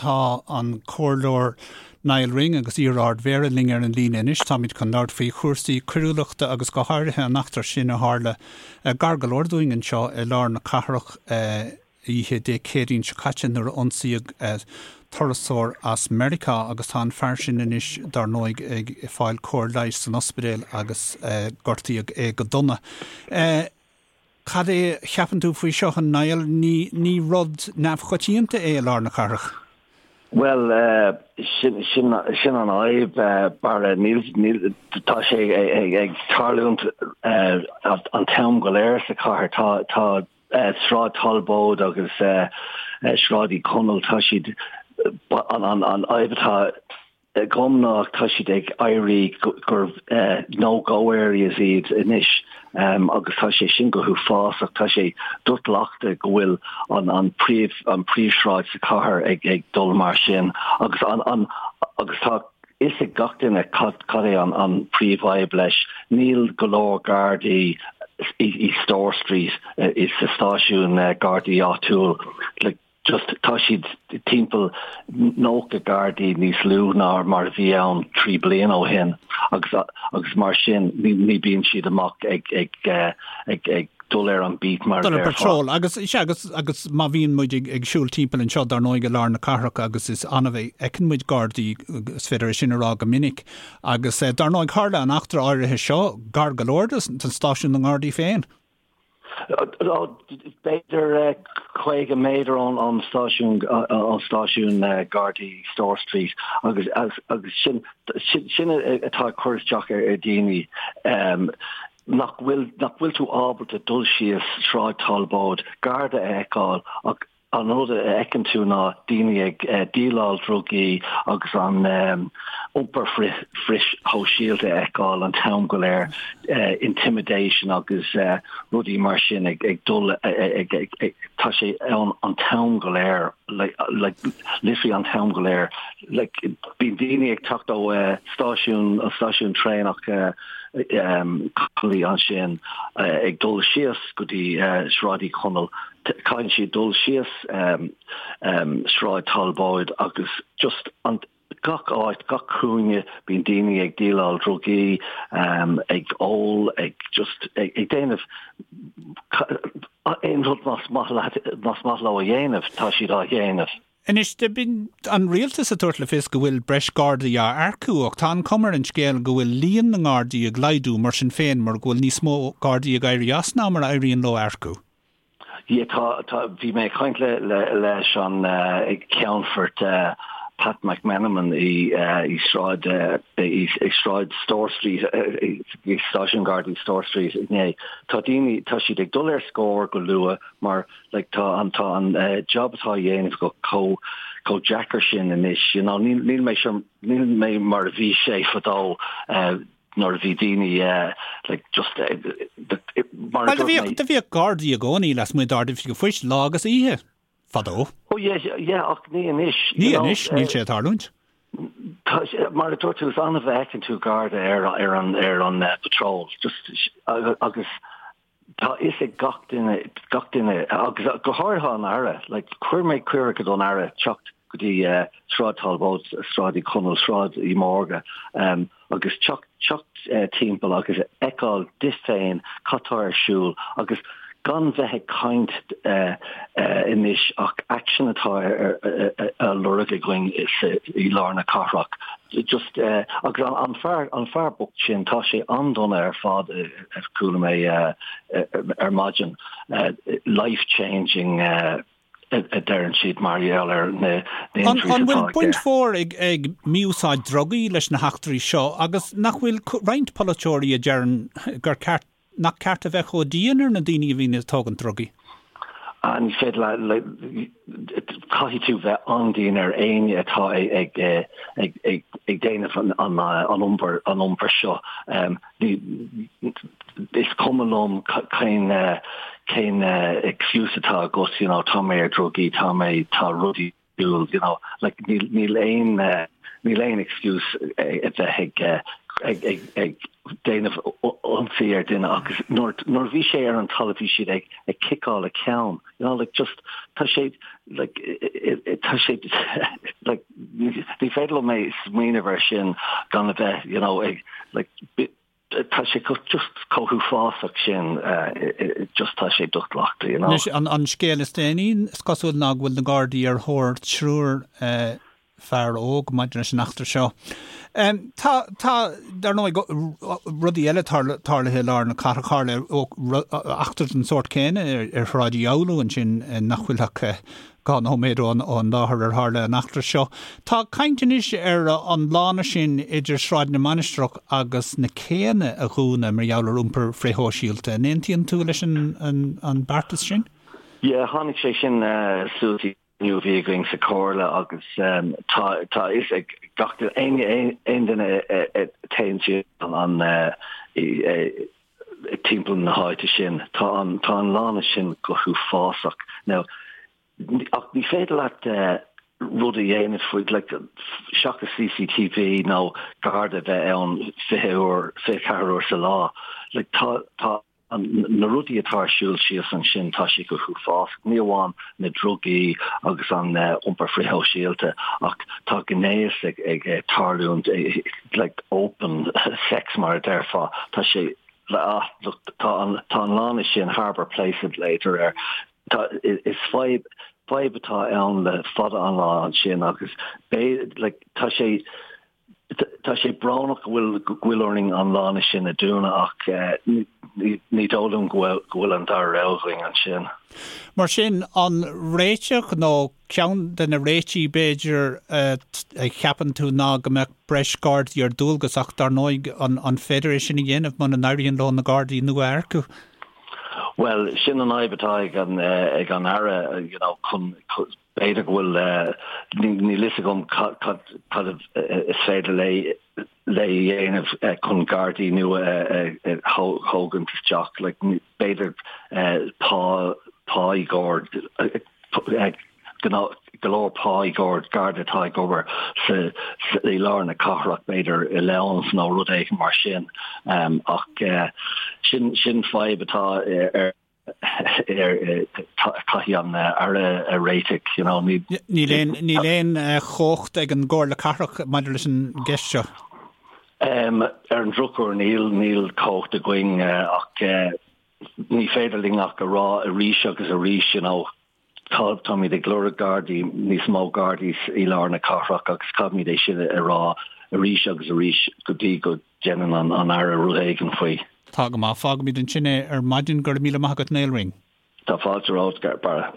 Tá an Comhairleoir Nial Ring agus iar-Ard-Mhéara linn ar an líne anois. Táimid chun labhairt faoi chúrsaí coiriúlachta agus go háirithe an eachtra sin a tharla gar go leor dúinn anseo i lár na cathrach oíche Dé Céadaoin seo caite nuair a ionsaíodh turasóir as Meiriceá agus tá an fear sin anois dar ndóigh ag fáil cóir leighis san ospidéal agus gortaíodh é go dona. Cad é a cheapann tú faoi seo, a Niall? Ní, ní rud neamhchoitianta é i lár na cathrach. Bhuel, sin, sin, sin an fhadhb, Barra. Níl, níl, tá sé ag tarlúint an t-am go léir sa chathair. Tá, tá Sráid Talbóid agus Sráid Uí Chonaill, tá siad, an, an, an fhadhb atá agam ná tá siad ag éirí gur no-go areas iad anois agus tá sé sin go huafásach. Tá sé do-ghlactha go bhfuil an an príomh an príomhshráid sa chathair ag ag dul mar sin agus an an agus tá fhios ag gach duine cad cad é an an príomhfhadhb leis. Níl go leor gardaí i i Store Street i sa stáisiún gardaí áitiúil. Like, just tá siad timpeall 90 gardaí níos lú ná mar a bhí ann 3 bliana ó shin agus agus mar sin ní ní bíonn siad amach ag ag ag ag dul ar an beat mar a Dul ar déarfá. patrol agus sea agus agus má bhíonn muid ag ag siúl timpeall anseo dar ndóigh i lár na cathrach agus is annamh a fheiceann muid gardaí is féidir é sin a rá go minic agus dar ndóigh tharla an eachtra áirithe seo gar go leor don stáisiún na nGardaí féin. B'fhéidir 50 méadar ón stáisiún ón stáisiún Gardaí Store Street agus agus sin sin atá ag cur isteach ar dhaoine nach bhfuil nach bhfuil tú ábalta dul síos Sráid Talbóid, Garda a fheiceáil ach An rud a fheiceann tú ná daoine ag díoláil drugaí agus an iompar frithshóisialta a fheiceáil an t-am go léir, intimidation agus rudaí mar sin ag dul ag, tá sé ann an t-am go léir, like literally an t-am go léir. Like bíonn daoine ag teacht ó stáisiún, an stáisiún traenach Connolly ansin ag dul síos go dtí Sráid Uí Chonaill, Caitheann siad dul síos Sráid Talbóid agus just an gach áit, gach cúinne, bíonn daoine ag díoláil drugaí, ag ól, ag just ag déanamh aon rud más maith leat, más maith leo a dhéanamh, tá siad á dhéanamh. Anois, bíonn an rialtas ag tabhairt le fios go bhfuil breis Gardaí á earcú ach tá an chuma ar an scéal go bhfuil líon na nGardaí ag laghdú mar sin féin mar go bhfuil níos mó Gardaí ag éirí as ná mar a éiríonn leo earcú. Yeah, tá, tá, bhí mé ag caint le, le, leis an Ceannfort Pat McMenamin i, i Sráid, i, i Sráid Store Street, i Stáisiún Gardaí Store Street inné. Tá daoine, tá siad ag dul ar scor go luath mar, like, tá an, tá an job atá á dhéanamh go chomh, chomh deacair sin anois, you know, níl, níl mé sure, níl mé mar a bhí sé fadó, nuair a bhí daoine like just mar a dúirt mé. Do bhíodh gardaí i gcónaí lasmuigh d'Ard-Oifig an Phoist lá agus oíche, fadó. Oh yeah, yeah, ach ní anois. Ní anois, níl sé ag tarlúint. Mar a dúirt tú, is annamh a fheiceann tú garda ar ar an ar an patrol, just agus Tá fhios ag gach duine, gach duine, agus go háirithe an Aire, like, chuir mé cuireadh don Aire teacht go dtí Sráid Talbóid, Sráid Uí Chonaill, Sráid Uí Mhórdha, agus teacht, teacht timpeall agus fheiceáil di féin cad tá ar siúl agus gan bheith ag caint anois ach action atá á lorg againn i lár na cathrach. Just, agus an fear, an fear bocht sin, tá sé an-dona ar fad. a chuala mé ar maidin, life changing a deireann siad mar gheall ar na injuries atá An bhfuil baint mhór ag mí-úsáid drugaí leis na heachtraí seo agus nach bhfuil roinnt polaiteoirí a deireann gur ceart nach ceart a bheith chomh dian ar na daoine a bhíonn ag tógaint drugaí? Ní féidir leat, caithfidh tú bheith an-dian ar éinne atá ag ag déanamh an iompar an iompar seo. Is cuma liom cén cén excuse atá agat, you know, tá mé ar drugaí, tá mé, tá rudaí siúl, you know, like níl níl aon níl aon excuse a bheith ag ag ag ag déanamh ionsaí ar duine agus nuair nuair a bhí sé ar an talamh bhí siad ag ag ciceáil a ceann, you know, like just tá sé like tá sé. Like, ní féidir liom é smaoineamh ar sin gan a bheith, you know, ag, like, tá sé just chomh huafásach sin, just tá sé dochloíte, you know. Anois, an scéal is déanaí, is cosúil ná go bhfuil na Gardaí ar thóir triúr fear óg maidir leis an eachtra seo. Tá, tá, dar ndóigh, rudaí eile tarlaithe i lár na cathrach, tharla eachtra den sórt céanna ar Shráid Uí Fhoghlú ansin nach bhfuil ach 2 nóiméad ón láthair ar tharla an eachtra seo. Tá caint anois ar an lána sin idir Sráid na Mainistreach agus na Céanna a dhúnadh mar gheall ar iompar frithshóisialta. An aontaíonn tú leis an beartas sin? Yeah, tháinig sé sin suas i gcruinniú a bhí againn sa Chomhairle agus tá tá a fhios ag gach duine, aon duine a théann síos an timpeall na háite sin. Tá an tá an lána sin go huafásach. Now, ach ní féidir leat rud a dhéanamh faoi, like, seachas CCTV nó garda a bheith ann 20 uair, 24 uair sa lá. Like, tá tá na rudaí atá ar siúl síos ansin, tá sé go huafásach. Ní amháin na drugaí agus an iompar frithshóisialta ach tá gnéas ag ag tarlúint like open sex mar a déarfá. Tá sé ah look tá an tá an lána sin Harbour Place a ghlaotar air. Tá is fadhb fadhb atá ann le fada an lá ansin agus b'fhéidir like tá sé Tá sé brónach go bhfuil go bhfuil orainn an lána sin a dúnadh ach ní dóigh liom go bhfuil go bhfuil an dara rogha againn ansin. Mar sin, an réiteach nó ceann de na réitigh b'fhéidir a cheapann tú ná go mbeadh breis Gardaí ar dualgas ach dar ndóigh an féidir é sin a dhéanamh muna n-éiríonn leo na Gardaí nua a earcú? Bhuel, sin an fhadhb atá ag an ag an Aire, you know, chun B'fhéidir go bhfuil, níl fhios agam cad is féidir léi a dhéanamh chun Gardaí nua a thógaint isteach. Like, b'fhéidir pá, pá i gcomhair, go leor pá i gcomhair Garda atá ag obair sa, i lár na cathrach, b'fhéidir allowance nó rud éigin mar sin. Ach sin, sin fadhb atá ar Caithfidh an Aire a réiteach, you know. Níl aon, níl aon chumhacht ag an gComhairle Cathrach maidir leis an gceist seo. Ar an drochuair níl, níl cumhacht againn ach ní féidir linn ach a rá arís agus arís, you know, Tá, táimid ag lorg Gardaí, níos mó Gardaí i lár na cathrach agus caithfimid é sin a rá arís agus arís go dtí go ndéanann an Aire rud éigin faoi. Tá go maith. Fágfaimid ansin é ar maidin. Go raibh míle maith agat Niall Ring. Tá fáilte romhat, Barra.